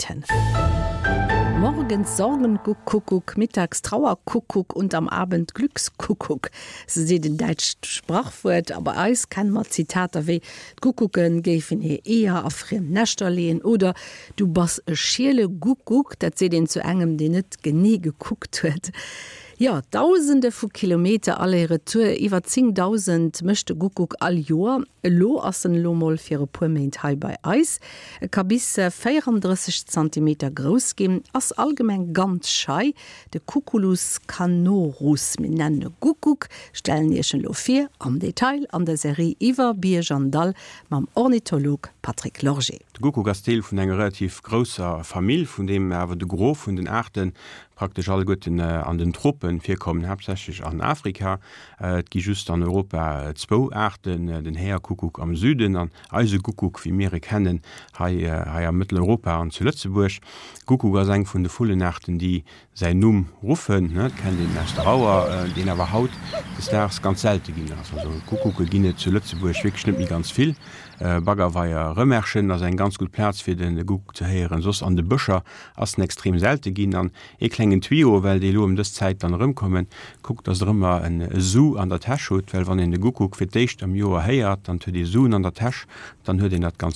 Zeiten. Morgens Sorgenkuckuck, mittags Trauerkuckuck und am Abend Glückskuckuck, sou seet en däitscht Sprachwuert. A bei eis kenne mer Zitater wéi D'Kuckucke géifen hir Eeër a friem Näschter leeën oder Du bass e schiele Guckuck, dat seet een zu engem, deen net genee gekuckt huet. Jo, Dausende vu Kilometer Aller-Retour, iwwer 10.000 mécht de Guckuck all Joer. Elo ass en elo mol fir e puer Méint hei bei eis. E ka bis 34 Zantimeter grouss ginn, ass allgemeng ganz schei. De Cuculus canorus, mir nennen e Guckuck, stellen Iech en elo vir am Detail an der Serie Iwwer Bierg an Dall mam Ornitholog Patrick Lorgé. De Guckuck ass Deel vun enger relativ grousser Famill, vun deem awer de Gros vun den Aarte praktesch alleguerten an den Tropen virkommen, haaptsächlech an Afrika. Et gi just an Europa zwou Aarten, den Häerkuckuck am Süden an eise Guckuck, wéi mir e kennen, hei hei a Mëtteleuropa an zu Lëtzebuerg. Guckuck ass eng vun de Vullenaarten, déi säin Numm ruffen, dat kennt een aus der Auer, deen awer haut des Daags ganz selte ginn ass. Also Guckucke ginn et zu Lëtzebuerg wierklech net méi ganz vill. Baggerweier Rëmerschen ass eng ganz gutt Plaz fir de Guckuck ze héieren, soss an de Bëscher ass en extrem selte ginn. An ee klengen Tuyau, well déi elo ëm dës Zäit dann erëmkommen, kuckt dass der ëmmer en Su an der Täsch hutt, well wann een de Guckuck fir d'éischt am Joer héiert, dann huet ee Suen an der Täsch, dann huet een dat ganz.